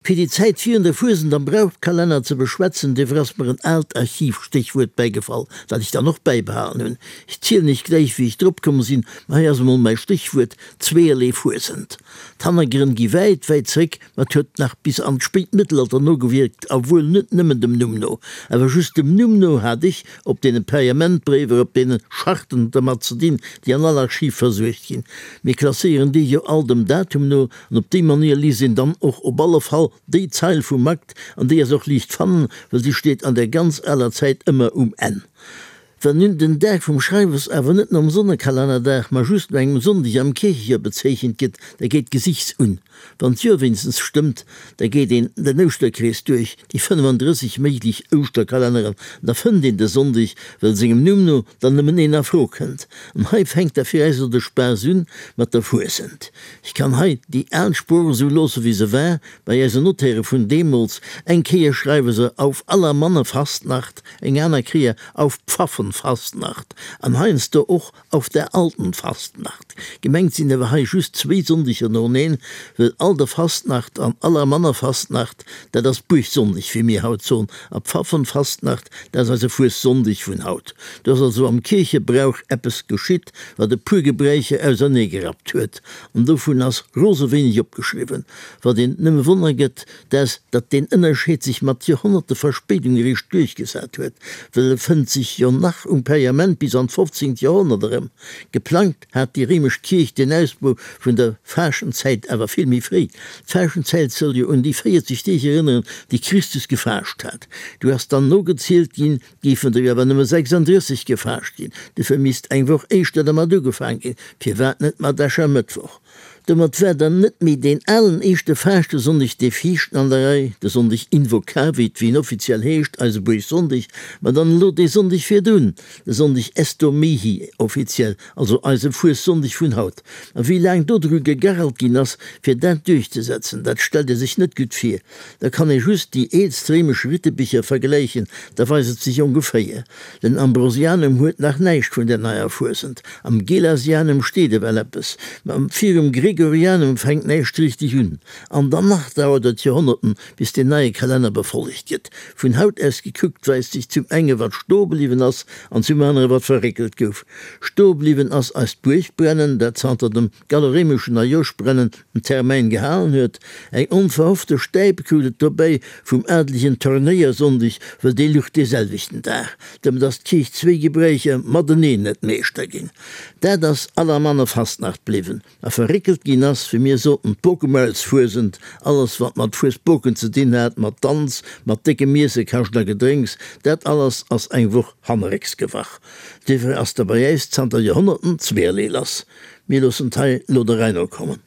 Fir déi Zäit virun der Fuesent am Brauchkalenner ze beschwätzen, duerfir ass mer en aalt Archivstéchwuert bäigefall, dat ech dann och bäibehalen hunn. Ech zielen iech gläich, wéi ech drop komm sinn, ma hei ass emol mäi Stéchwuert, Zweeërlee Fuesent. D'Hannergrënn gi wäit, wäit zréck, ma et huet nach bis an d'spéit Mëttelalter nogewierkt, a wuel net nëmmen dem Numm no. Awer just dem Numm no hat ech op deene Pergamentbréiwer, op deene Scharten dermat ze dinn, déi an all Archiv versuergt ginn. Mir klasséieren déi jo all dem Datum no, An op déi Manéier liest een dann och op alle Fall déi Zeil vum Akt, an déi ass och liicht fannen, well si steet an der ganz aler Zäit ëmmer um Enn. Well nun den Dag vum Schreiwes awer net nom Sonnekalennerdag, ma just no engem Sonndeg am Kierchejoer bezeechent gëtt, da geet d'Gesichts un. Wann d'Joer wéinstens stëmmt, da geet een den Ouschterkrees duerch, déi 35 méiglech Ouschterkalenneren, an da fënnt een de Sonndeg, well sengem Numm no dann nëmmen een a Fro kënnt. An hei fänkt da fir äis elo de Spaass un mat der Fuesent. Ech kann hei déi al Sprooch esou loosse wéi se war, bei eisen Notaire vun deemools, eng Kéier schreiwe se auf Allermannefastnacht, eng aner Kéier auf Pfaffenfastnacht an heiansdo och auf der alten Fastnacht. Gemengt sinn awer hei just zwéi Sonndeger noeneen, well Alderfastnacht an Allermannerfastnacht, dat ass Buergsonndeg, wéi mir haut soen, a Pfaffenfastnacht, dat ass eise Fuessonndeg vun haut. Do ass also am Kierchebrauch eppes geschitt, wat e puer Gebräicher auserneegerappt huet, an dovun ass rose wéineg opgeschriwwen. Wat een nëmme wonner gëtt, dat ass, datt deen Ënnerscheed sech mat Joerhonnerte Verspéidung eréischt duerchgesat huet, well e fënnt sech jo nach um Pergament bis an d'fofzéngt Joerhonnert erëm. Geplangt hat déi réimesch Kierch den Ausbau vun der Faaschtenzäit awer vill méi fréi. D'Faaschtenzäit soll jo un déi 40 Deeg erënneren, déi Christus gefaascht hat. Du ass dann nogezielt ginn, Géifen der jo awer nëmme 36 gefaascht ginn, dofir misst eng Woch éischter dermat ugefaang ginn, firwat net mat Aschermëttwoch? Domat war dann net méi deen alen éischte Faaschtesonndeg dee viischten an der Rei, de Sonndeg Invocavit, wéi en offiziell heescht, eise Buergsonndeg, ma dann elo dee Sonndeg virdrun, de Sonndeg Estomihi, offiziell, also eise Fuessonndeg vun haut. A wéi laang do dru gegarrelt ginn ass, fir dat duerchzesetzen, dat stellt ee sech net gutt vir. Da kann ee just déi eelst réimesch Rittebicher vergläichen, da weist et sech ongeféier. Den Ambrosianum huet nach näischt vun der neier Fuesent, am Gelasianum steet ewell eppes, ma virum Gregorianum fänkt näischt richteg un. An dann nach dauert et Joerhonnerten, bis deen neie Kalenner befollegt gëtt. Vun haut aus gekuckt weist sech zum enge wat stoe bliwwen ass an zum anere wat verréckelt gouf. Stoe bliwwen ass eist Buergbrennen, dat zanter dem gallo-réimeschen Neijooschbrennen den Termäin gehalen huet. Eng onverhoffte Stäip krut et dobäi vum adelegen Turnéiersonndeg, well dee luch dee selwechten Dag. Domat ass d'Kierch zwéi Gebräicher mateneen net Meeschter ginn. Dat ass allermanner Fastnacht bliwwen. A verréckelt ginn ass, wéi mir soten, d'Bokemaulsfuesent, alles wat mat Fuesboken ze dinn hat, mat Danz, mat déckem Iesse, Kascht a Gedrénks, dat alles ass eng Woch hannerrécks gewach. Duerfir ass da bei äis zanter Joerhonnerten zweerlee lass. Mir loossen d'hei lo der Rei no kommen.